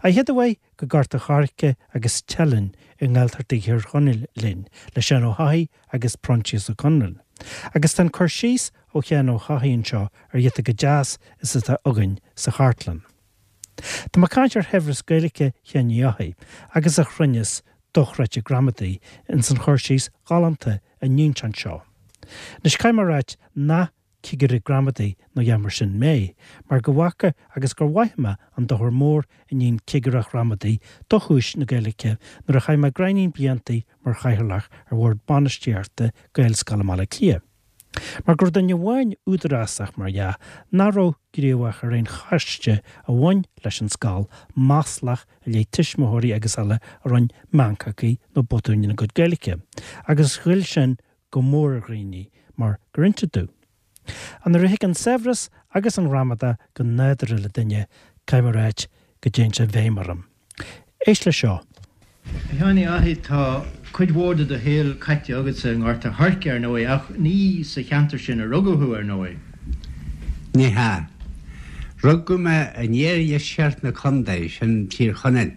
An chéad uair go Gort a' Choirce agus Teileann i nGaeltacht Thír Chonaill linn, le Seán Ó hEochaidh agus Proinsias Ó Conluain. Agus tá an cur síos ó Sheán Ó hEochaidh anseo ar ghiota chomh deas is atá againn sa chartlann. Tá mé ag caint ar shaibhreas Gaeilge Sheáin Uí Eochaidh agus a chruinneas dochreidte gramadaí ins an chur síos ghalánta a níonn sé anseo. Anois caithfidh mé a ráit nach cigire gramadaí nó a dhath mar sin mé, mar go bhfaca agus gur mhaith mé an dochar mór a níonn cigireacht ghramadaí do chúis na Gaeilge nuair a chaith mé gráinnín bliantaí mar chathaoirleach ar bhord bainistíochta Gaelscoil i mBaile Átha Cliath. Mar go raibh duine amháin údarásach, mar dhea, nach raibh gníomhach ar aon choiste a bhain leis an scoil, maslach i leith tuismitheoirí agus eile a rinne meancachaí nó botúin ina gcuid Gaeilge, agus ghoill sin go mór ar dhaoine, mar gur inse domh. Ach nuair a thig an saibhreas agus an ghramadach go nádúrtha le duine, caithfidh mé a ráit go dtéann sé i bhfeidhm orm. Éist leis seo. A Sheáin Uí Fhathaigh, tá cuid mhór de do shaol caite agatsa i nGort a' Choirce, ar ndóigh, ach ní sa cheantar sin a rugadh thú, ar ndóigh. Ní hea. Rugadh mé in iardheisceart na contae, sin Tír Chonaill,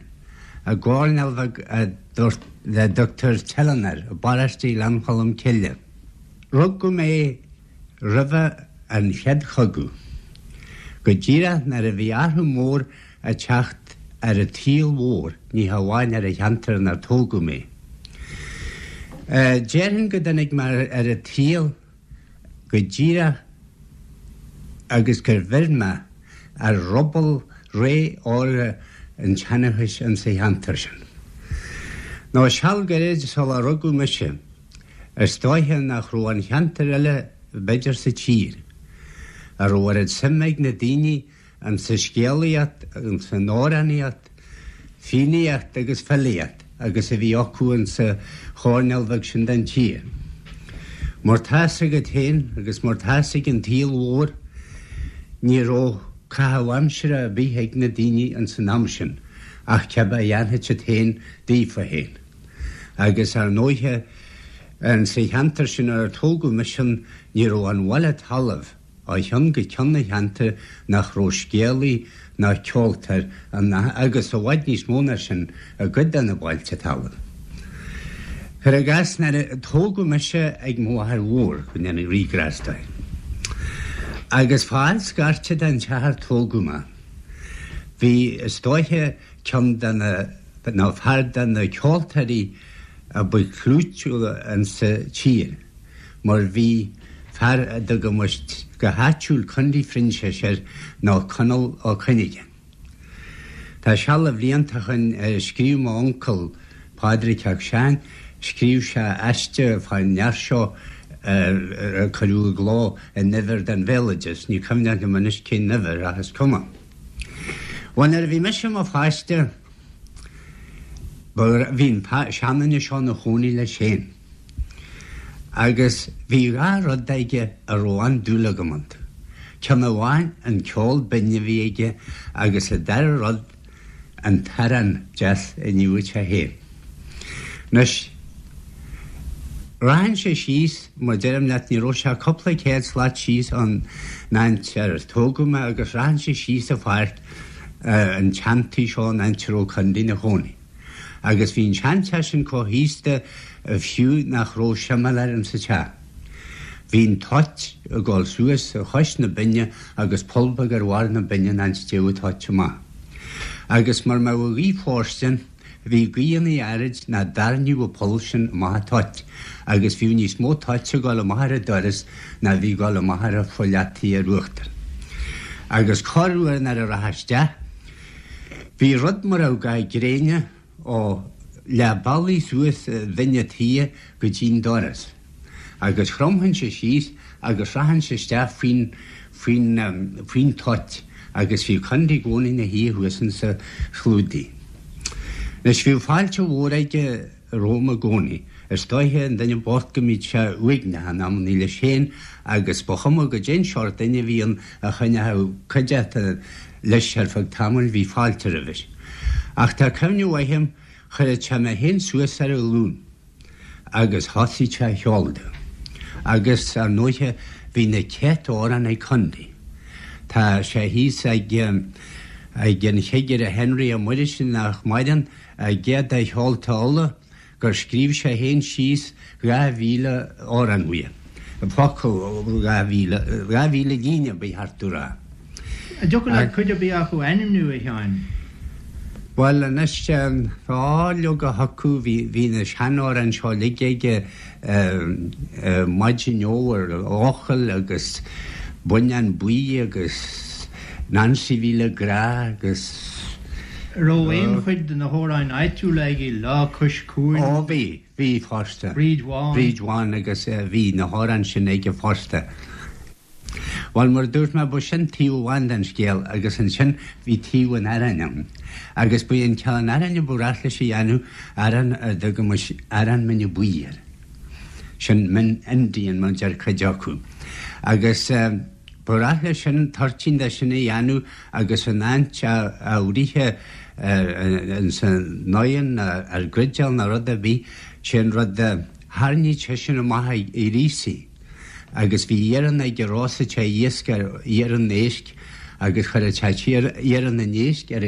i gcoirnéal bheag a dtugtar Teileann air, i bparóiste Ghleann Cholm Cille. Rugadh mé roimhe an Chéad Chogadh, go díreach nuair a bhí athrú mór ag teacht ar an tsaol mhór, ní hamháin ar an cheantar inar tógadh mé. Déarfainn go dtáinig mé ar an tsaol go díreach agus gur bheir mé ar ruball ré órga an tseanchais insa cheantar sin. Nó seal gairid sular rugadh mise, is dóiche nach raibh aon cheantar eile b'fhéidir sa tír a raibh oiread suime ag na daoine Insa scéalaíocht, insan amhránaíocht, fiannaíocht agus filíocht agus a bhí acu insa choirnéal bheag sin den tír. Mar tá fhios agat féin agus mar tá fhios ag an tsaol mhór, ní raibh caitheamh aimsire ar bith ag na daoine insan am sin ach cibé a dhéanfadh siad féin daofa féin. Agus ar ndóighe, insa cheantar sin ar tógadh mise ní raibh aon bhaile talaimh, Ó cheann go ceann an cheantair nach raibh scéalaí ná ceoltóir ann agus i bhfad níos mó ná sin i gcuid de na bailte talaimh. Cuir i gcás, nuair a tógadh mise ag mo mháthair mhór, go ndéana Rí grásta di, agus fá fhad scairte den teach ar tógadh mé, bhí, is dóiche, ceann de na, nó fear de na ceoltóirí a ba chlúitiúla insa tír. mar bhí fear a dtugaimis go háitiúil Condaí Phroinsiais air nó Conall Ó Cuinneagáin. Tá seal de bhlianta ó shoin scríobh m'uncail Pádraig Mac Seáin, scríobh sé aiste fán fhear seo a cuireadh i gcló in uimhir den Bhéaloideas, ní cuimhneach liom anois cén uimhir ach is cuma. Bhuel nuair a bhí mise i mo pháiste bhí an seanduine seo ina chónaí leis féin. Agus bhí dha rud aige a raibh an-dúil agam iontu. Ceann amháin an ceol binn a bhí aige agus an dara rud an t-arán deas a níodh sé féin. Anois, rachainnse síos, mar deirim leat, ní raibh sé ach cúpla céad slat síos ón áit ar tógadh mé agus rachainnse síos an pháirc an tseantigh seo an áit a raibh Condaí ina chónaí. Agus bhí an seanteach sin chomh haosta fiú nach raibh seimiléir insa teach. Bhí an toit ag dul suas chois na binne agus poll beag ar bharr na binne an áit a dtéadh an toit amach. Agus mura mbeadh an ghaoth fóirstean, bhí gaothanna áirid ná dtarraingeodh an poll sin amach an toit agus bhíodh níos mó toite ag dul amach ar an doras ná bhí ag dul amach ar an pholl fhataí ar uachtar. Agus corruair nuair a rachfá isteach, Bhí rud mar a bheadh ga gréine ó leath bealaigh suas bhinn a' tíghe go dtí'n doras, agus chromfainnse síos agus rachainnse isteach faoin, faoin, faoin toit agus bhí Condaí i gcónaí 'na shuí thuas insa chlúdaigh. Anois bhíodh fáilte mhór aige romham i gcónaí. Is dóiche an duine bocht go mbíodh sé uaigneach in amannaí leis féin agus ba chuma goidé'n seort duine a bhí ann a choinneochadh cuideachta leis ar feadh tamaill bhí fáilte roimhe. Ach tá cuimhne mhaith a'm chuireadh sé mé féin suas ar a ghlúin agus thosaigh sé a cheol domh. Agus ar ndóiche bhí na céadta amhrán ag Condaí. Tá sé thíos ag. Ag an Chigire Henry Ó Muirthile nach maireann, i gcéad de Cheolta Uladh, gur scríobh sé féin síos 2,000 amhrán uaidh. Focal 2,000, 2,000 líne ba cheart domh rá. An dtiocfadh leat cuid ar bith acu a ainmniú, a Sheáin? Bhuel, anois, tá leoga acu, bhí na seanamhráin seo uilig aige, Maidin Fhómhair Eochaill agus Buinneán Buí agus Nancy Bhí le Grá agus. An raibh aon chuid de na hamhráin áitiúla aige, Lá Cois Cuain? Ó bhí, bhí fosta. Bríd Bhán. Bríd Bhán agus bhí na hamhráin sin aige fosta. Bhuel, mar a dúirt mé, ba sin taobh amháin den scéal agus ansin bhí taobh an aráin ann. Agus ba é an ceann aráin a ba ghnách leis a dhéanamh, arán a dtugaimis arán mine buí air. Sin min Indian mar a deir cuid acu. Agus ba ghnách leis sin toirtín de sin a dhéanamh agus in áit é a bhruith ins an oigheann nó ar grideall nó rud ar bith, sé an rud a tharraingíodh seisean amach a ghríosaí. Agus bhí iarann aige róstadh sé iasc ar iarann éisc agus chuireadh sé iarann an éisc ar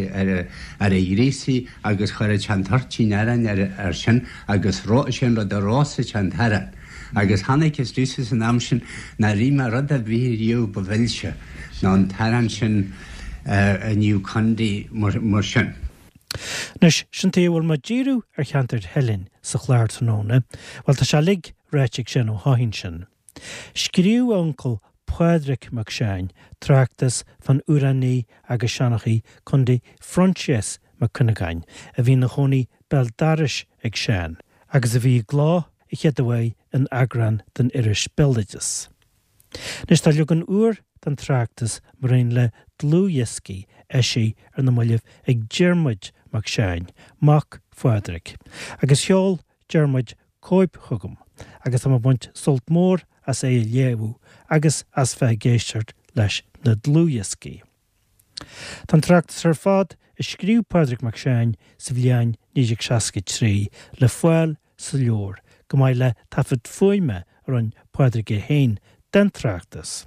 a ghríosaí agus chuireadh sé an toirtín aráin air sin agus sé an rud a róstadh sé an t-arán. Agus chonacthas domhsa san am sin nár ith mé rud ar bith riamh ba mhilse ná an t-arán sin a níodh Condaí mar sin. Anois, sin tuige a bhfuil mé ag díriú ar cheantar Theilinn sa chlár tráthnóna, bhuel tá sé uilig ráite ag Seán Ó hEidhin sin. Scríobh a uncail Pádraig Mac Seáin tráchtas fán amhránaí agus seanchaí Condaí Phroinsias Mac Cuinneagáin a bhí ina chónaí béal dorais ag Seán agus a bhí i gcló a chéaduair in eagrán den iris Béaloideas. Anois tá leagan úr den tráchtas maraon le dlúthdhioscaí eisithe ar na mallaibh ag Diarmuid Mac Seáin, mac Phádraig, agus sheol Diarmuid cóip chugam agus tá mé ag baint sult mór as é a léamh agus as bheith ag éisteacht leis na dlúthdhioscaí. Tá an tráchtas ar fad a scríobh Pádraig Mac Seáin sa bhliain 1963 le fáil sa leabhar, chomh maith le taifead fuaime a rinne Pádraig é féin den tráchtas.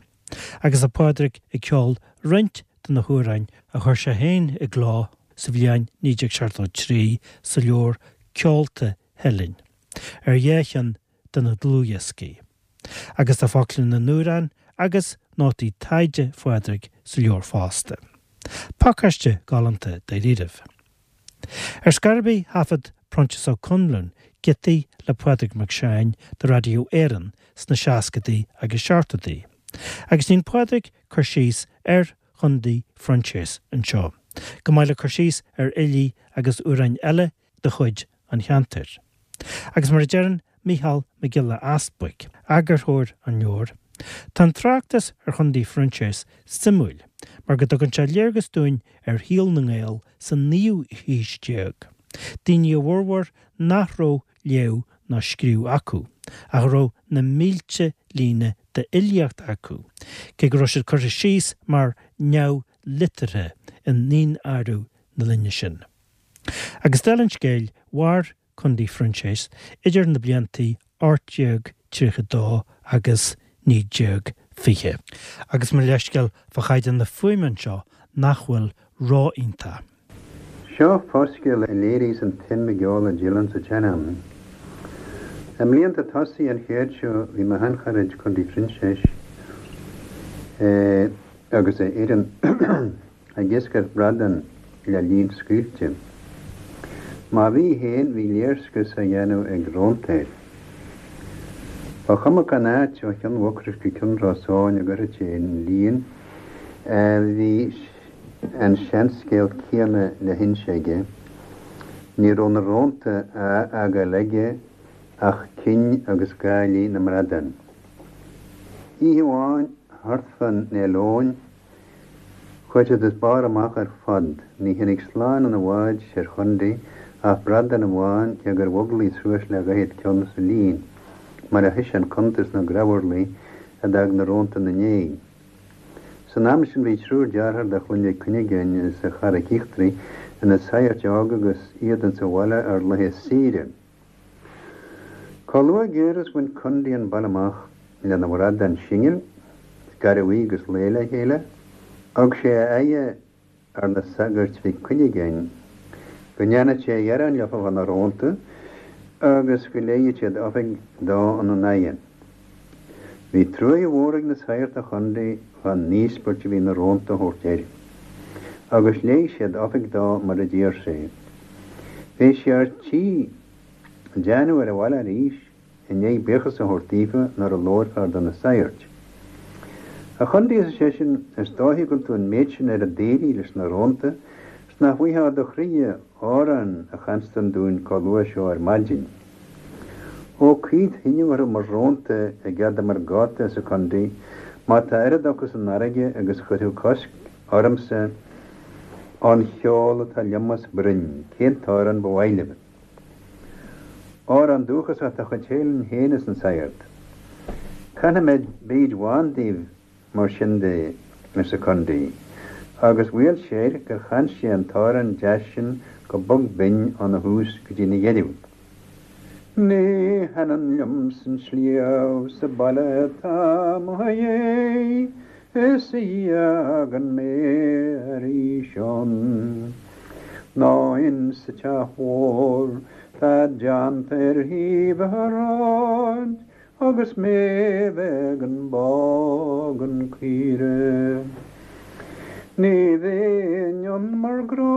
Agus tá Pádraig ag ceol roinnt de na hamhráin a chuir sé féin i gcló sa bhliain 1973 sa leabhar Ceolta Theilinn, ar dhá cheann de na dlúthdhioscaí. Agus tá focla na n-amhrán agus nótaí taighde Phádraig sa leabhar fosta. Pacáiste galánta dáiríribh. Ar scor ar bith thaifead Proinsias Ó Conluain giotaí le Pádraig Mac Seáin do Radio Éireann sna seascadaí agus seachtóidí. Agus déanann Pádraig cur síos ar Chondaí Phroinsias anseo, chomh maith le cur síos ar fhilí agus amhráin eile de chuid an cheantair. Agus mar a deireann Mícheál Mac Giolla Easbuig, eagarthóir an leabhair, tá an tráchtas ar Chondaí Phroinsias suimiúil mar go dtugann sé léargas dúinn ar shaol na nGael sa naoú haois déag, daoine a bhformhór nach raibh léamh ná scríobh acu, ach a raibh na mílte líne d'fhilíocht acu, cé go raibh siad curtha síos mar neamh-liteartha i ndaonáireamh na linne sin. Agus dála an scéil, mhair Condaí Phroinsias idir na bliantaí 1832 agus 1920. Agus mo leithscéal fá chaighdeán na fuaime anseo nach bhfuil ró-iontach. Seo foscéal a léiríos an tsuim i gceol a Dillon sa tsean-am. I mblianta tosaigh an chéid seo bhí mo sheancharaid Condaí Phroinsiais agus a fhoireann ag iascaireacht bradán le líon scaoilte. Má bhí féin, bhí léirscrios á dhéanamh ag rónta air. Ba chuma cén áit ó Chionn Mhucrois go Cionn Ros Eoghain a gcuirfeadh sé an líon, bhí an seanscéal céanna le hinse aige. Ní raibh na rónta á fhágáil aige ach cinn agus gálaí na mbradán. Oíche amháin, thart fán Fhéile Eoin, Chuaigh siad as barr amach ar fad. Ní tháinig slán ina bhád soir Chondaí ach bradán amháin cé gur mhoglaigh suas le dhaichead ceann sa líon, mar a thoisigh an cuntas sna grabharlaí a d'fhág na rónta ina ndiaidh. San am sin bhí triúr dearthár de chlann Mhic Cuinneagáin sa Charraic Íochtarach ina saghairt óga agus iad insa bhaile ar laethe saoire. Chomh luath géar is bhain Condaí an baile amach lena bhradán singil, garbh agus lao le chéile, thug sé a aghaidh. ar na sagairt Mhic Cuinneagáin go ndéanfadh sé ghearán leofa fá na rónta agus go léighfeadh siad oifig dó ina n-aghaidh. Bhí truaighe mhór ag na saghairt do Chondaí fán n-íospairt a bhí na rónta a thabhairt air, agus léigh siad oifig dó mar a d'iarr sé. Bhí sé ar tí déanamh ar an bhaile arís i ndiaidh buíochas a thabhairt daofa nuair a labhair fear de na saghairt. A Chondaí, arsa seisean, is dóiche go bhfuil tú an méid sin ar an daoraí leis na rónta 's nach bhfuightheá do chroidhe amhrán a chanstan dúinn comh luath seo ar maidin. Ó caoinfead thinneadh orthu mo rónta i gcead mar gáta, arsa Condaí, má tá oiread acu san fharraige agus chuirfeadh cosc ormsa ón cheol atá liom os broinn, cén t-amhrán ba mhaith libh? Amhrán dúchasach de chuid Theilinn féin, arsa an saghart. Canfaidh mé Bríd Bhán daoibh mar sin de, arsa Condaí, agus bhaol sé air gur chan sé an t-amhrán deas sin go bog binn óna thús go dtí na dheireadh. Ní thaitneann liomsa an sliabh 's an baile atá mo dhéidh is a fhágann mé arís ann ná insa teach mhór tá déanta ar thaobh an ráid Agus mé bheith gan bá gan caoire. Ní bheinn ann mar grá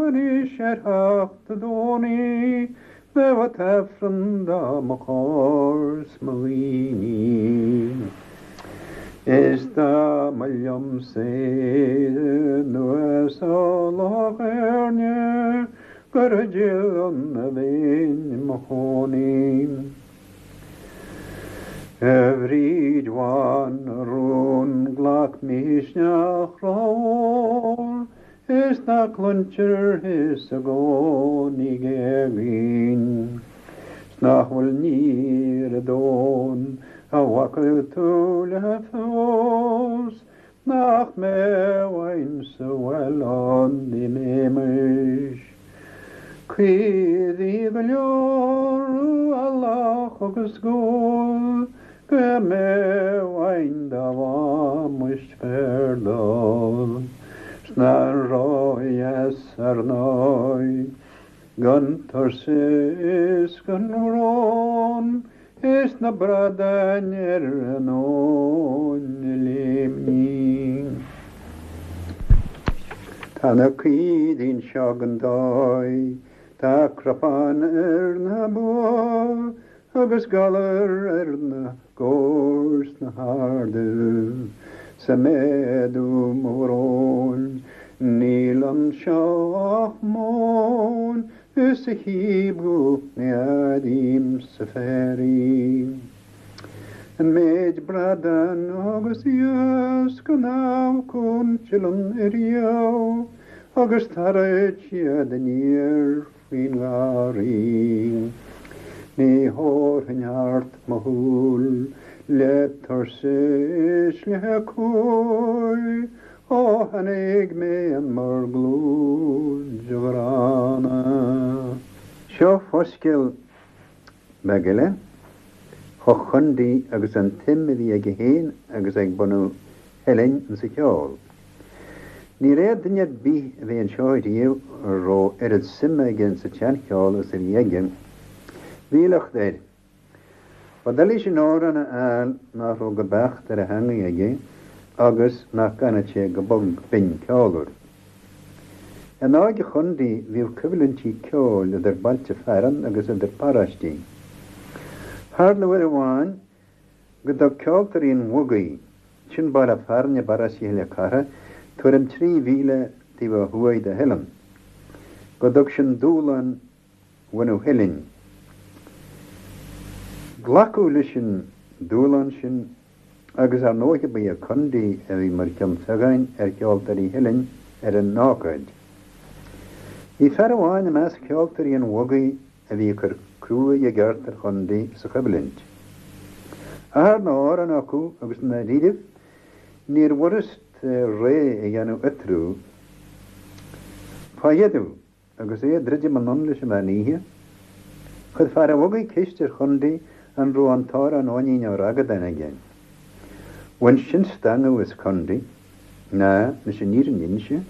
anois ar theacht a' Domhnaigh bheadh an t-Aifreann dá mo chomhair 's mo dhaoine. Is dá mba liomsa Éire anuas ó Loch Éirne gur i dTeileann a bheinn i mo chónaí. A Bhríd Bhán, a rún, glac misneach rómhór is ná cluintear thusa i gcónaí ag éagaoin 's nach bhfuil ní ar an domhan a bhfaca tú le feabhas Nach mbeadh uainn sa bhaile ann dá mbeimis. Caoirigh go leor, eallach agus gual, go mbeadh uainn dá bhfaighmis féar dall. 'S nach ródheas ar ndóigh, gan tuirse is gan bhrón, Is na bradáin ar an abhainn ag léimní. Tá na caoirigh anseo gan dóigh, tá cnapán ar na ba agus galar ar na gabhair sna hardaibh. 'S ag méadú mo bhróin, níl anseo ach móin Is a chím thú ní airím sa féar í. An méid bradán agus iasc an amharcann Teileann ariamh agus tarraid siad aniar faoin ngarraí. Ní thabharfainn thart mo shúil le tuirse is le cumhaidh Ó tháinig mé in bhur gclúid, a ghránna. Seo foscéal beag eile fá Chondaí agus an tsuim a bhí aige féin agus ag bunadh Theilinn insa cheol. Ní raibh duine ar bith a bhí anseo riamh a raibh oiread suime aige insa tseancheol is a bhí aige. Bhí locht air. Ba doiligh sin amhrán a fháil nach raibh go beacht ar a theangaidh aige agus nach gcanfadh sé go bog binn ceolmhar. In óige Chondaí bhíodh coimhlintí ceoil idir bailte fearainn agus idir paróistí. Tharla uair amháin go dtug ceoltóirí an Bhogaigh, sin baile fearainn i bparóiste Chill Chartha, tuairim 3 mhíle taobh ó thuaidh de Theileann, go dtug sin dúshlán bhunadh Theilinn. Glacadh leis an dúshlán sin agus ar ndóighe ba é Condaí a bhí mar cheann feadháin ar cheoltóirí Theilinn ar an ócáid. Bhí fear amháin i measc cheoltóirí an Bhogaigh a bhí ag cur cruaidh i gceart ar Chondaí sa choimhlint. Achar na n-amhrán acu agus i ndáiríribh níorbh fhurast réidh a dhéanamh eatarthu. Fá dheireadh, Agus é ag druidim anonn leis an mheán oíche, chuir fear an Bhogaigh ceist ar Chondaí an raibh an t-amhrán Eoinín Ó Ragadáin aige. Bhain sin stangadh as Condaí, ná, leis an fhírinne a inse.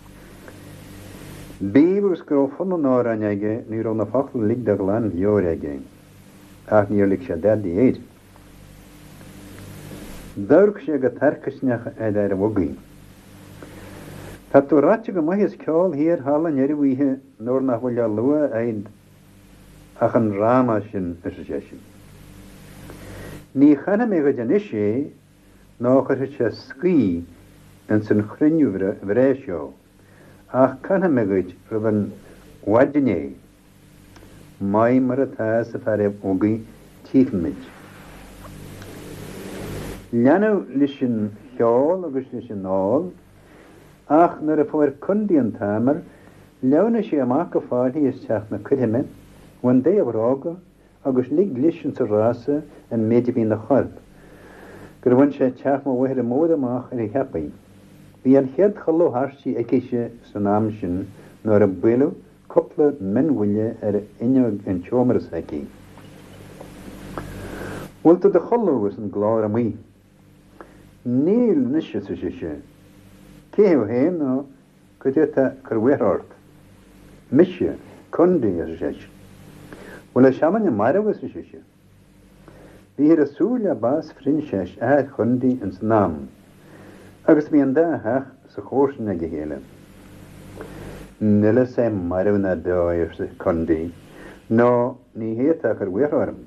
Bíodh agus go raibh fonn an amhráin aige ní raibh na focla uilig de ghlan-mheabhair aige, ach níor lig sé dadaí air. D'amharc sé go tarcaisneach ar fhear an bhugaí. Tá tú ráite go maith as ceol thiar thall i ndeireadh oíche nuair nach bhfuil le lua a'd ach an dráma sin, arsa seisean. Ní chanfaidh mé dhuit anois é nó chuirfeadh sé scaoth ins an chruinniú bhreá seo, ach canfaidh mé dhuit roimh an mhaidin é. Maith mar atá, arsa fear an bhugaí, tchífimid. Leanadh leis an cheol agus leis an ól, ach nuair a fuair Condaí an t-aimir, shleamhnaigh sé amach go fáilthigh as teach na coirthime, bhain de a bhróga agus lig leis insa rása an méid a bhí ina chorp, gur bhain sé teach mo mháthara mór amach ar a cheapaí. Bhí an chéad chodladh thairsti aicise san am sin nuair a buaileadh cúpla mionbhuille ar fhuinneog an tseomra s'aici. Bhfuil tú do chodladh? arsa an glór amuigh. Níl anois, arsa sise. Cé thú féin nó cad é atá ag cur buartha ort? Mise, Condaí, arsa seisean. Bhfuil an seanduine marbh? arsa sise. Bhíthear ag súil le bás Phroinsiais, athair Chondaí, ins an am, agus bhí an dá theach sa chomharsain ag a chéile. Níl a fhios a'm marbh ná beo é, arsa Condaí, nó ní hé atá ag cur buartha orm.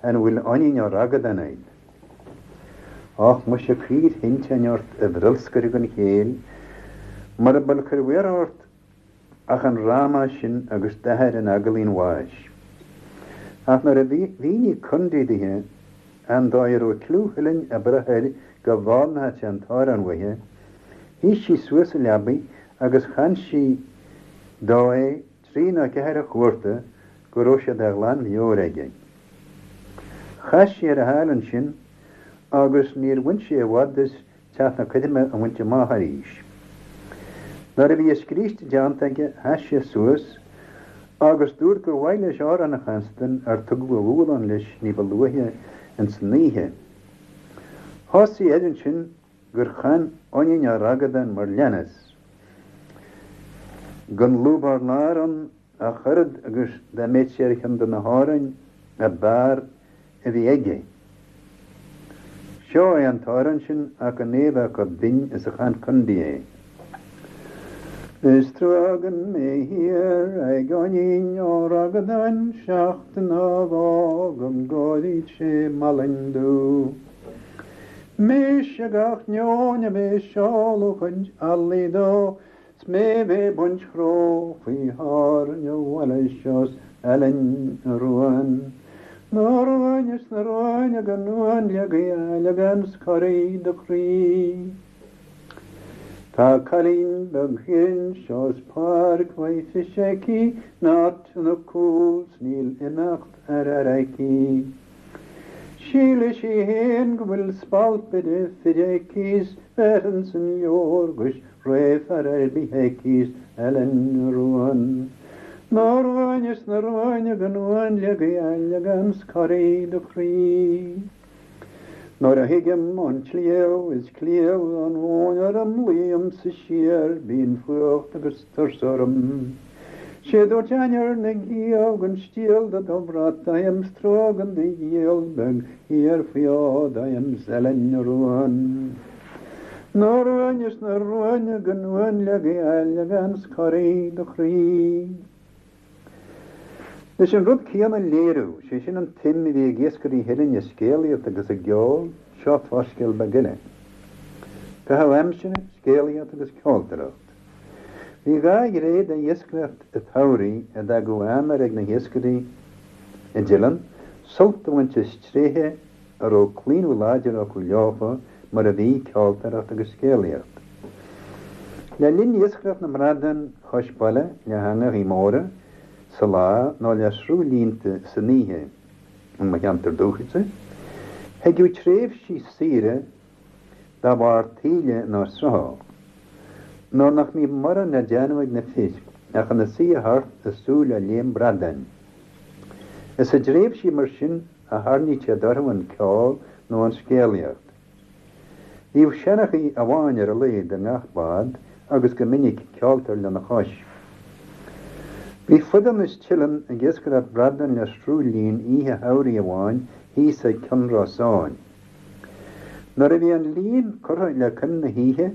An bhfuil Oinnín Ó Ragadáin a'd? Och, muise cuir thinteáin ort, a bhrolscaire den chéill, mura bhfuil ag cur buartha ort ach an dráma sin agus d'athair in eaglaí an bháis. Ach nuair a mhínigh Condaí dithe an dóigh a raibh cliú Theilinn ag brath air go bhfoghlaimeodh sé an t-amhrán uaithe, shuigh sí suas sa leabaidh agus chan sí dó é trí nó ceathair chuarta go raibh sé de ghlan-mheabhair aige. Chas sé ar a sháil ansin agus níor bhain sé i bhfad as teach na coirme a bhaint amach arís. Nuair a bhí a scríste déanta aige sheas sé suas agus dúirt gur mhaith leis amhrán a chanstan ar tugadh a dhúshlán leis ní ba luaithe ins an oíche. Thosaigh air ansin gur chan Oinnín Ó Ragadáin mar leanas, Gan lúb ár lár ann ach oiread agus dá mbeadh sé ar cheann de na hamhráin ab fhearr a bhí aige. Seo é an t-amhrán sin ach gan é a bheith chomh binn is a chan Condaí é. Is trua gan mé thiar ag Oinnín Ó Ragadáin seachtain á bhfágaim gcóiríd sé Malainn dubh. Mise gach neoin a bheith seoladh chuid eallaigh dó 's mé bheith baint chró faoi tháirne bhaile seo 's Eilean Ruain. Na ruain is na ruain gan uain le Gaeilge 's corraigh do chroí. Tá cailín beag thiar anseo 's páirc mhaith phis aici in áit ina cúl 's níl imeacht ar fhear aici. Síleann sí fhéin go bhfuil spalp idir fir aici 's bhéarfainnse an leabhar 'gus rogha fear ar bith aici 's Eilean Ruain. Na ruain is na ruain gan uain le Gaeilge 's corraigh do chroí. Nuair a thigim ón tsliabh is cliabh an mhóin orm luímse siar bíonn fuacht agus tuirse orm. Sé dúirt ainnir na gciabh gan stiall de do bhrat agam 's trua gan do ghiall beag thiar faoi fhód agam 's Eilean Ruain. Na ruain is na ruain gan uain le Gaeilge 's corraigh do chroí. Leis an rud céanna a léiriú, sé sin an tsuim a bhí ag iascairí Theilinn i scéalaíocht agus i gceol, seo fáthscéal beag eile. Caitheamh aimsire, scéalaíocht agus ceoltóireacht. Bhí dhá ghné d'iascaireacht an tsamhraidh a d'fhágadh aimir ag na hiascairí i dTeileann, sult a bhaint as tréithe a raibh claonadh láidir acu leofa, mar a bhí, ceoltóireacht agus scéalaíocht. Le linn iascaireacht na mbradán chois baile le heangachaí móra sa lá nó le sruthlínte san oíche in mo cheantar dúchais, thigeadh tréimhsí saoire dá bharr taoille nó srutha, nuair nach mbíodh morán le déanamh ag na fir ach ina suí thart ag súil le léim bradáin. Is i dtréimhsí mar sin a tharraingítear orthu an ceol nó an scéalaíocht. Bhíodh seanchaí amháin ar a laghad i ngach bád agus go minic ceoltóir lena chois. Bhí Fuideann is Teileann ag iascaireacht bradán le sruth lín oíche shamhraidh amháin thíos ag Cionn Rosáin. Nuair a bhí an líon curtha le coim na hoíche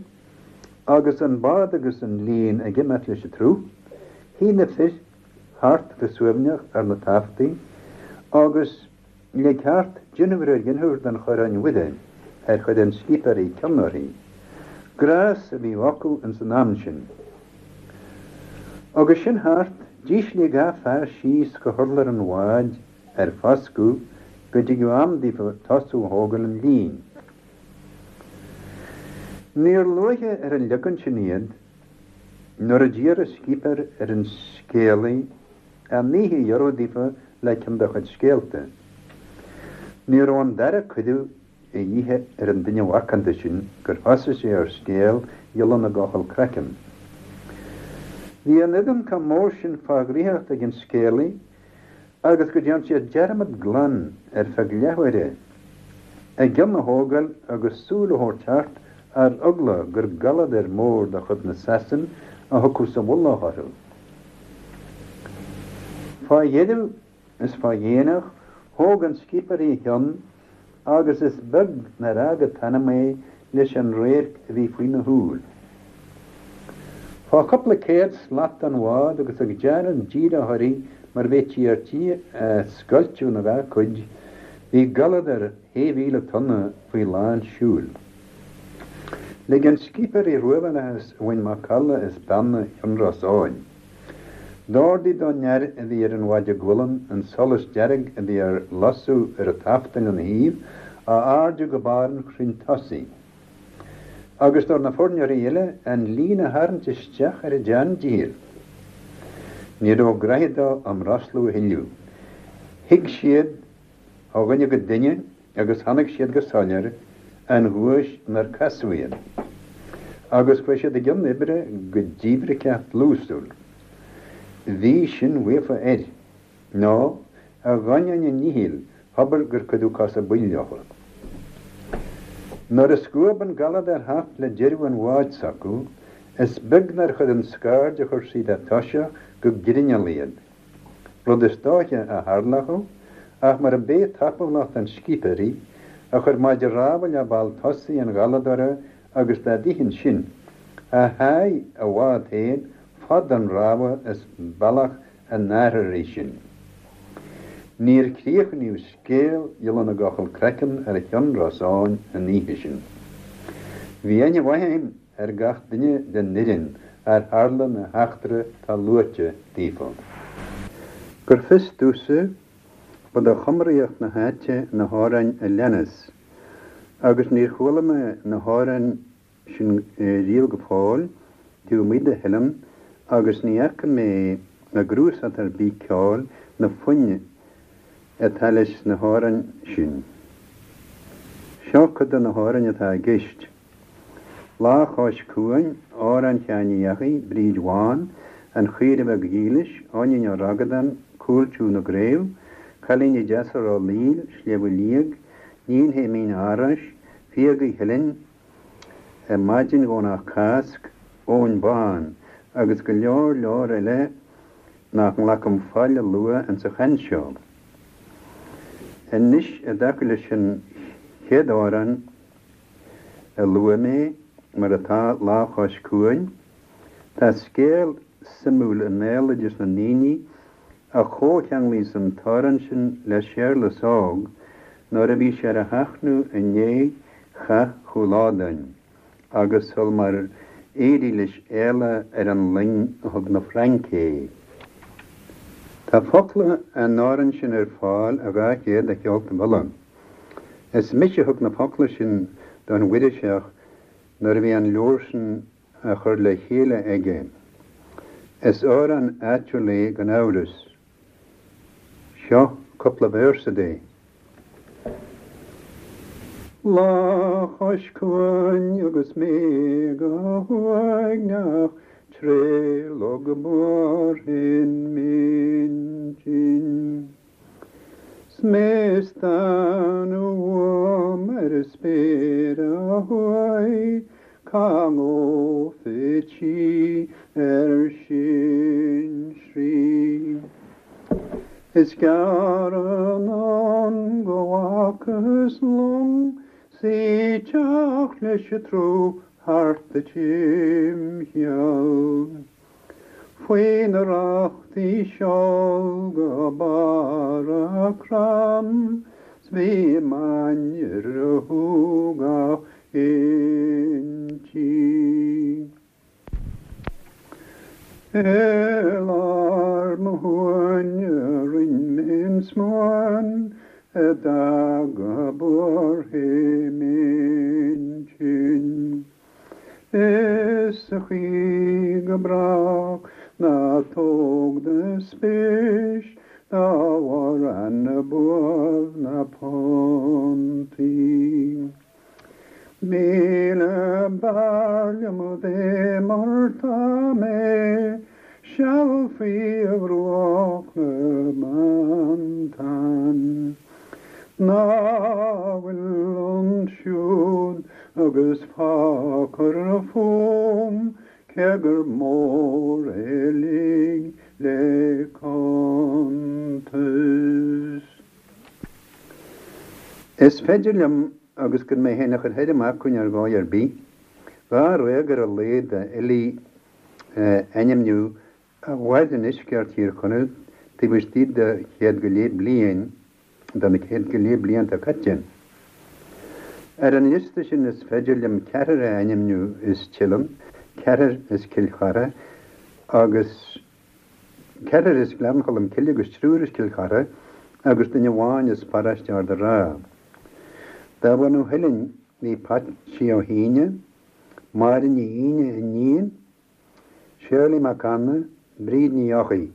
agus an bád agus an líon ag imeacht leis an tsruth, shuigh na fir thart go suaimhneach ar na taftaí agus le ceart dinniúr ar dhinniúr den Choróin Mhuire ar chuir an scipéirí cion uirthi. Gnás a bhí acu ins an am sin. Agus sin thart, d'ísligh gach fear síos go hurlár an bháid ar foscadh go dtigeadh am daofa tosú a thógáil an lín. Níor luaithe ar an leagan sin iad nuair a d'iarr an scipéir ar an scéalaí an oíche a ghiorrú daofa le ceann dá chuid scéalta. Ní raibh an dara cuireadh a dhíth ar an duine mhacánta sin gur thosaigh sé ar scéal Ghiolla na gCochall Craiceann. Bhí an fhoireann chomh mór sin fá dhraíocht ag an scéalaí agus go dtearn siad dearmad glan ar feadh leathuaire a gcion a thógáil agus súil a thabhairt thart ar eagla gur galadóir mór de chuid na Sasan a thiocfadh sa mhullach orthu. Fá dheireadh is fá dhéanach thóg an scipéirí a chionn agus is beag nár fhág an t-anam é leis an radharc a bhí faoina shúil. Fá chúpla céad slat den bhád agus ag déanamh díreach uirthi mar bheití ar tí a scoilteadh ina dhá cuid, bhí galadóir 6,000 tonna faoi lán siúil. Lig an scipéirí ruabhallachas a bhain macalla as beanna Chionn Rosáin. D'ordaigh don fhear a bhí ar an mhaide gualann an solas dearg a bhí ar lasadh ar an tafta lena thaobh a airdiú go barr an chrainn tosaigh, agus do na foirneoirí eile an líon a tharraingt isteach ar a dteann-dícheall. Ní raibh graithe dó á mbrostlú a thuilleadh. Shuigh siad ó dhuine go duine agus chonaic siad go soiléir an ghuais inar casadh iad, agus chuaigh siad i gcionn oibre go díbhriceach dlúsúil. Bhí sin faofa air, nó, a dh'ainneoin a ndíchill, thobair gur cuireadh cosa baill leofa. Nuair a scuab an galadóir thart le deireadh an bháid s'acu, is beag nár chuir an scaird a chuir siad a toiseach go grinneall iad. rud is dóiche a tharlódh ach mura b'é tapúlacht an scipéirí a chuir maide rámha le ball tosaigh an ghaladóra agus dá bhíthin sin, a sháigh a bhád féin fad an rámha is bealach an airtheoirí sin. Níor críochnaíodh scéal Ghiolla na gCochall Craiceann ar Chionn Rosáin an oíche sin. Bhí aithne mhaith a'm ar gach duine den fhoireann ar tharla na heachtra atá luaite daofa. Gur fios domhsa, ba de chumraíocht na háite na hamhráin a leanas, agus níor chuala mé na hamhráin sin riamh go fóill, taobh amuigh de Theileann, agus ní fhaca mé i gcnuasach ar bith ceoil na foinn atá leis na hamhráin sin. Seo cuid de na hamhráin atá i gceist. Lá Chois Cuain, Amhrán Sheáin Uí Eachaidh, Bríd Bhán, An Chaoire Bheag Dhílis, Eoinín Ó Ragadáin, Cúl Tiugh na gCraobh, Cailíní Deasa Ráth Líl, Sliabh Liag, Níon Shéimín Árais, Fiagaí Theilinn, Maidin Dhomhnach Cásc, Eoin Bán, agus go leor leor eile nach nglacaim faill a lua insa chaint seo. Anois i dtaca leis an chéad amhrán, a luaigh mé, mar atá, Lá Chois Cuain. Tá scéal suimiúil i mbéaloideas na ndaoine a chomhcheanglaíos an t-amhrán sin le Séarlas Óg nuair a bhí sé ar a sheachnadh i ndiaidh chath Chúil Ádáin agus sul mar éirigh leis éalá ar an loing a thug na Fraince é. Tá focla an amhráin sin ar fáil i 200 de Cheoltaibh Uladh. Is mise a thug na focla sin don Mhuiriseach nuair a bhí an leabhar sin á chur le chéile aige. Is amhrán áitiúil é gan amhras. Seo cúpla véarsa de. Lá chois cuain agus mé go huaigneach tré Log Boirinn m'intinn. 'S mé ag stánadh uaim ar an spéir ó thuaidh, cá ngabhfad sí ar sinsearaí. Is gearr anonn go bhfacthas long 's í ag teacht leis an tsruth thart do timcheall. Faoi na rachtaí seol go barr a' crann 's bhí m'ainnir a shúgach inti. I lár mo shuaine rinn mé an smúan a d'fhága buartha m'intinn. Is sa chaoi go brách ná tóg do spéis dá bharr na buaf na pontí. 1000 b'fhearr liom a bheith mar tá mé, seal faoi bhruach na mBantan. Ná fuil ansiúd agus fágfar fúm cé gur mór é uilig le cuntas. Is féidir liom agus gan mé féin a chur thoir amach chugainn ar dhóigh ar bith, dháréag ar a laghad d'fhilí a ainmniú a mhair i ndeisceart Thír Chonaill taobh istigh de chéad go leith bliain, de na céad go leith blianta caite. Ar an liosta sin is féidir liom ceathrar a ainmniú as Teileann, ceathrar as Cill Chartha agus. Ceathrar as Gleann Cholm Cille agus triúr as Cill Chartha agus duine amháin as paróiste Ard a' Rátha. De bhunadh Theilinn bhí Patsí Ó hAoine, Máire Ní Aoine, iníon, Shirley Mac Anna, Bríd Ní Eochaidh.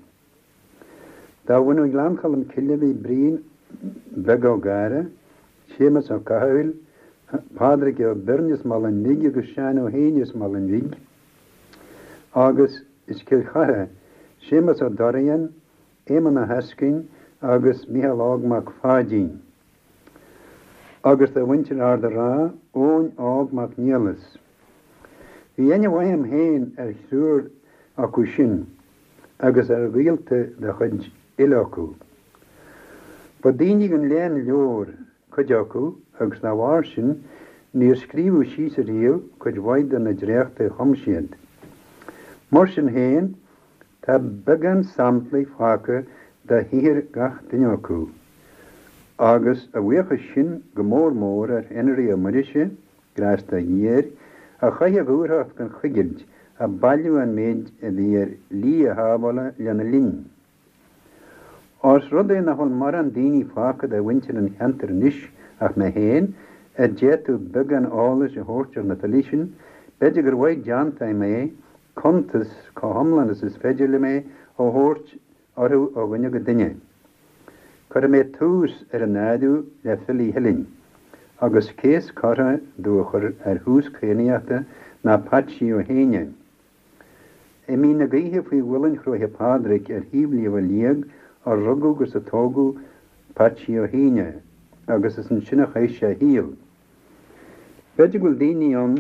De bhunadh Ghleann Cholm Cille bhí Brian Beag Ó Gadhra, Séamus Ó Cathaoil, Pádraig Ó Beirn as Malainn Bhig agus Seán Ó hÉanaí as Malainn Bhig agus As Cill Chartha, Séamus Ó Dorrian, Éamonn Ó hEascoinn agus Mícheál Óg Mac Pháidín. Agus de mhuintir Ard a' Rátha, Eoin Óg Mac Niallais. Bhí aithne mhaith a'm féin ar thriúr acu sin agus ar ghaolta de chuid uile acu. Ba daoine den léann leabhar cuid acu agus dá bharr sin níor scríobhadh síos ariamh cuid mhaith de na dréachtaí a chum siad. Mar sin féin, tá beagán samplaí fágtha de shaothar gach duine acu, agus a bhuíochas sin go mór mór ar Henry Ó Muirise, grásta Dé air, a chaith a dhúthracht gan choigilt ag bailiú an méid a bhí ar shlí a shábhála lena linn. Ós rud é nach bhfuil mórán daoine fágtha de mhuintir an cheantair anois ach mé féin, a d'fhéadfadh beagán eolais a thabhairt ar na filí sin, b'fhéidir gur mhaith déanta a'm é cuntas, chomh hiomlán is is féidir liom é, a thabhairt orthu ó dhuine go duine. Cuirfidh mé tús ar an áireamh le filí Theilinn, agus cé is córa domh a chur ar thús cadhnaíochta ná Patsí Ó hÉanaí. I Mín na Gaoithe faoi mhuileann Chróiche Phádraig ar thaobh Shliabh Liag a rugadh agus a tógadh Patsí Ó hÉanaí agus is ansin a chaith sé a shaol. B'fhéidir go bhfuil daoine ann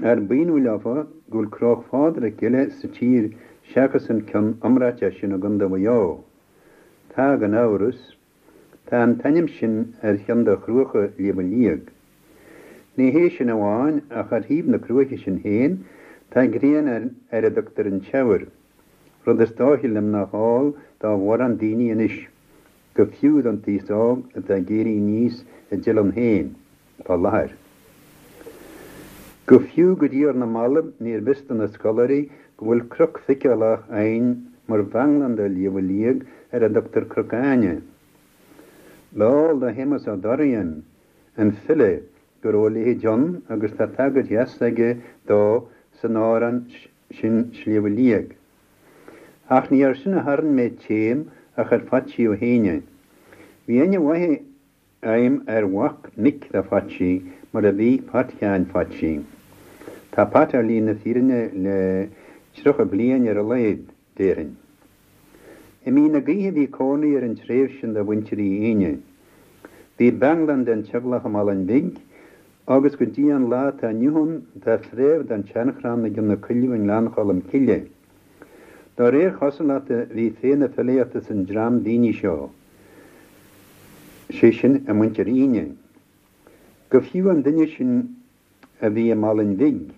ar b'ionadh leofa go bhfuil Cróch Phádraig eile sa tír seachas an ceann iomráiteach sin i gContae Mhaigh Eo. Tá, gan amhras. Tá an t-ainm sin ar cheann de chruacha Shliabh Liag. Ní hé sin amháin ach ar thaobh na cruaiche sin féin tá grian ar a dtugtar an Teamhair, rud is dóiche liom nach eol do mhórán daoine anois, go fiú don t-aos óg atá ag éirí aníos i dTeileann féin fá láthair. Go fiú go dtí ar na mallaibh níorbh fhios do na scoláirí go bhfuil cnoc feiceálach againn mar bhanglann de Shliabh Liag ar a dtugtar Cnoc Áine. Ba eol do Shéamus Ó Dorrian, an file, go raibh a leithéid ann agus tá tagairt dheas aige dó san amhrán sin Sliabh Liag. Ach ní air sin a tharraing mé téim ach ar Phatsí Ó hÉanaí. Bhí aithne mhaith a'm ar mhac mic do Phatsí mar a bhí Pat Sheáin Phatsí. Tá Pat ar shlí na fírinne le 30 bliain ar a laghad, déarfainn. I Mín na Gaoithe bhí cónaí ar an treibh sin de mhuintir Uí Éanaí. Bhí banglann den teaghlach i Malainn Bhig agus go dtí an lá atá inniu ann tá fréamh den tseanchrann i gCionn na Coilleadh i nGleann Cholm Cille. Dá réir chosúlachta bhí féith na filíochta san dream daoine seo, sé sin i muintir Fhíne. Go fiú an duine sin a bhí i Málainn Bhig,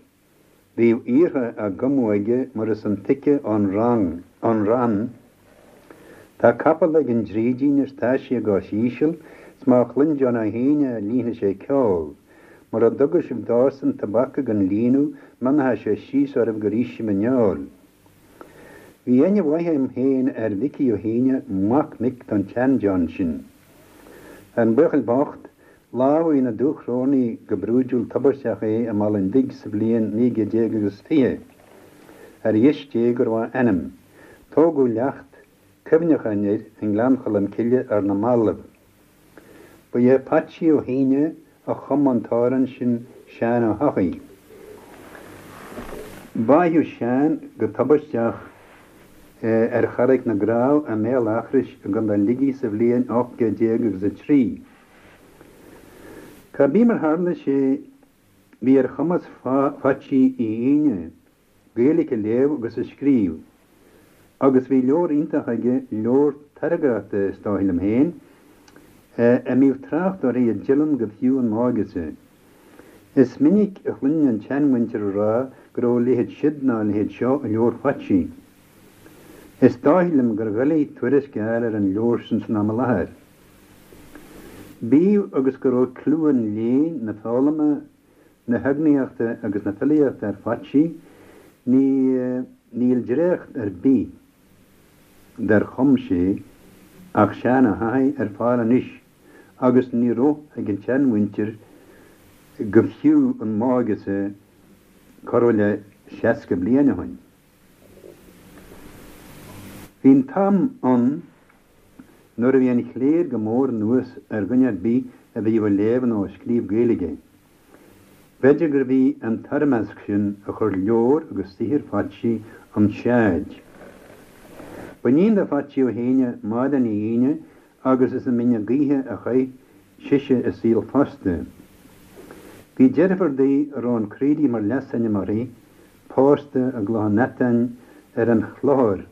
bhíodh aortha á gcumadh aige mar is intuigthe ón rann, Tá capall ag an drídín is tá sé ag os íseal 's má chluin John Ó hAoine é líonfaidh sé ceol. Mura dtuga sibh dósan tobac ag an líonadh mionfaidh sé síos oraibh gur ith sibh an fheoil. Bhí aithne mhaith agam féin ar Mhicí Ó hAoine, mac mic don tsean-John sin. An buachaill bocht, lámhaigh na Dúchrónaigh go brúidiúil tubaisteach é i Málainn Bhig sa bhliain naoi gcéad déag agus 20. Ar dheis Dé go raibh a anam. Tógadh leacht cuimhneacháin air i nGleann Cholm Cille ar na mallaibh. Ba é Patsí Ó hAoine a chum an t-amhrán sin Seán Ó hEochaidh. Báitheadh Seán go tubaisteach ar Charraig na gCreamh i mBéal Eachrois i gContae Shligigh sa bhliain 18 céad agus a trí. Cá bith mar tharla sé bhí ar chumas Phaitsí Uí Aoine Gaeilge a léamh agus a scríobh, agus bhí leabhar iontach aige, leabhar tairngreachta is dóigh liom féin, a mbíodh trácht uirthi i dTeileann go fiú an m'óigese. Is minic a chluininn an tseanmhuintir ag rá go raibh a leithéid siud ná a leithéid seo i leabhar Phaitsí. Is dóigh liom gur dhoiligh tuairisc a fháil ar an leabhar sin san am i láthair. Bíodh agus go raibh clú an léinn, na foghlama, na heagnaíochta agus na filíochta ar Phaitsí, ní níl dréacht ar bith dar chum sé ach Seán Ó hEochaidh ar fáil anois agus ní raibh ag an tseanmhuintir go fiú an m'óigese corradh le 60 bliain ó shin. Bhí an t-am ann nuair a bhí an chléir go mór anuas ar dhuine ar bith a bhíodh ag léamh nó ag scríobh Gaeilge. B'fhéidir gurbh í an toirmeasc sin a chuir leabhar agus saothar Phaitsí 'on tseaid. B'iníon do Phaitsí Ó hAoine Máire Ní Aoine agus is i mBinn na Gaoithe a chaith sise a saol fosta. Bhí deirfiúr di a raibh an Craoraí mar leasainm uirthi, pósta i gCloich Neatáin ar an Chlochar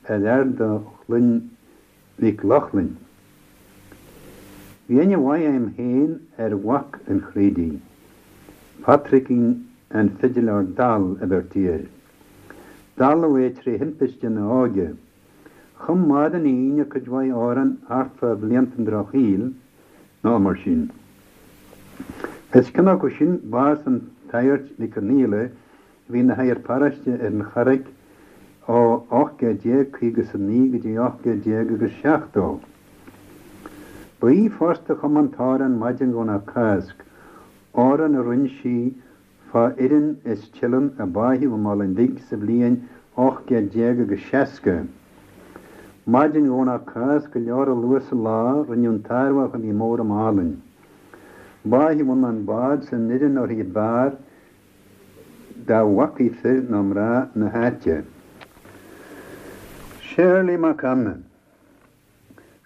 ar fhear de chloinn Mhic Lochlainn. Bhí aithne mhaith agam féin ar mhac an Chraoraí, Patraicín an Fidiléir Dall a bheirtí air. Dalladh é tré thimpiste ina óige. Chum Máire Ní Aoine cuid mhaith amhrán thart fá bhlianta an Drochshaoil, nó mar sin. Is ceann acu sin bás an tSagairt Mhic Conaola a bhí ina shagart paróiste ar an Charraig ó 1859 go dtí 1870. Ba í fosta a chum an t-amhrán Maidin Dhomhnach Cásc, amhrán a roinn sí fá fhoireann as Teileann a báitheadh i Málainn Bhig sa bhliain 18 céad agus 60. Maidin Dhomhnach Cásc go leor luath sa lá rinneadh an t-armhach a bhí mór i Málainn. Báitheadh ann an bád 's an fhoireann uirthi ab fhearr dá bhfacaí fir nó mná na háite. Séarlaí Mac Anna.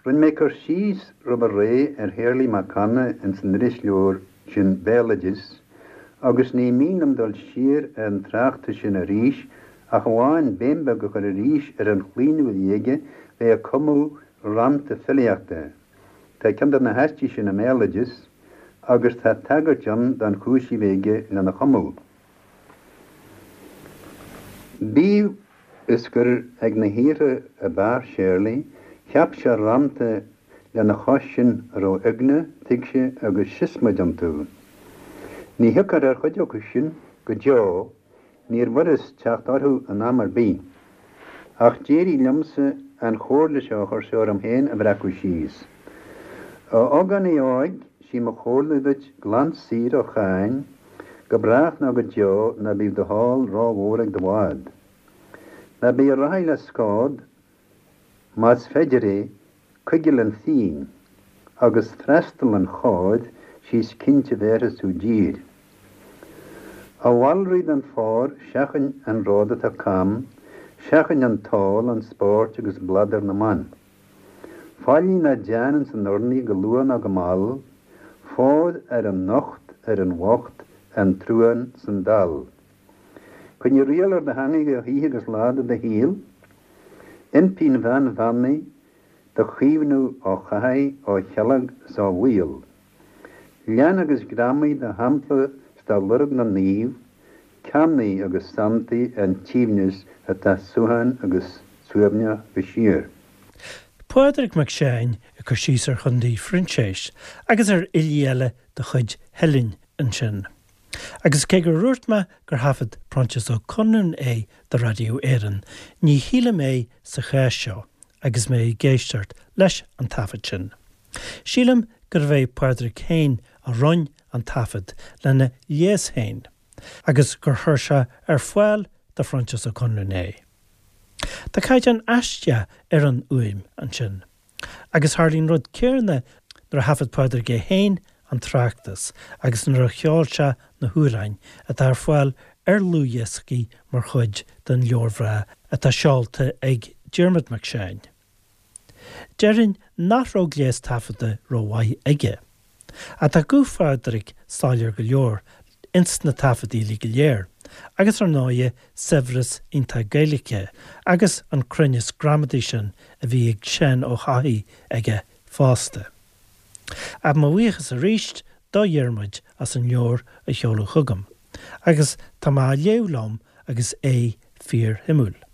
Rinne mé cur síos roimhe ré ar Shéarlaí Mac Anna ins an irisleabhar sin Béaloideas agus ní mian liom dul siar ar an tráchtas sin arís ach amháin béim beag a chur arís ar an chlaonadh a bhí aige bheith ag cumadh rannta filíochta. Tá ceann de na haistí sin i mBéaloideas agus tá tagairt ann don chúis a bhí aige lena chumadh. Bíodh is gur ag na haortha ab fhearr Séarlaí, cheap sé rannta lena chois sin a raibh eagna, tuigse agus siosmaid iontu. Ní thiocfar ar chuid acu sin go deo, níorbh fhurast teacht orthu in am ar bith. Ach d'éirigh liomsa an chomhairle seo a chuir sé orm féin a bhreacadh síos. A ógánaigh óig, sí mo chomhairle duit glan saor ó cháin, Go brách nó go deo ná bíodh do sháil rómhór ag do bhád. Ná bí ag rothaí le scód, más féidir é, coigil an phínn, agus freastal an chóir, 'sea is cinnte bhéarfaidh tú dtír. A mhalraí don phór, seachain an ród atá cam, seachain an t-ól, an spórt agus bladar na mban. Faillí ná déan ins an urnaí go luath ná go mall, Fóir ar an nocht, ar an bhocht, an truán 's an dall. Coinnigh riail ar do theangaidh oíche agus lá de do shaol. Impíonn bean Bhearnaí do chaomhnú ó chathaigh, ó chealg 's ó bhaol. Lean agus greamaigh de shampla 's de lorg na naomh, Cearnaigh agus santaigh an t-aoibhneas atá suthain agus suaimhneach de shíor. Pádraig Mac Seáin ag cur síos ar Chondae Phroinséis agus ar fhilí eile de chuid Theilinn ansin. Agus cé gur dhúirt mé gur thaifead Proinsias Ó Conluain é do Radio Éireann, ní shílim é sa chás seo agus mé ag éisteacht leis an taifead sin. Sílim gurbh é Pádraig féin a roinn an taifead lena ghléas féin agus gur chuir sé ar fáil do Phroinsias Ó Conluain é. Tá caighdeán aisteach ar an fhuaim ansin. Agus tharlaigh an rud céanna nuair a thaifead Pádraig é féin an tráchtas agus nuair a cheol sé na hamhráin atá ar fáil ar dhlúthdhioscaí mar chuid den leabhar bhreá atá seolta ag Diarmuid Mac Seáin. Déarfainn nach raibh gléas taifeadta rómhaith aige. Ach tá guth Phádraig soiléir go leor ins na taifeadtaí uilig go léir, agus ar ndóighe saibhreas iontach Gaeilge agus an cruinneas gramadaí sin a bhí ag Seán Ó hEochaidh aige fosta. Ach mo bhuíochas arís do Dhiarmuid as an leabhar a sheoladh chugam, agus tá mé á léamh liom agus é fíorshuimiúil.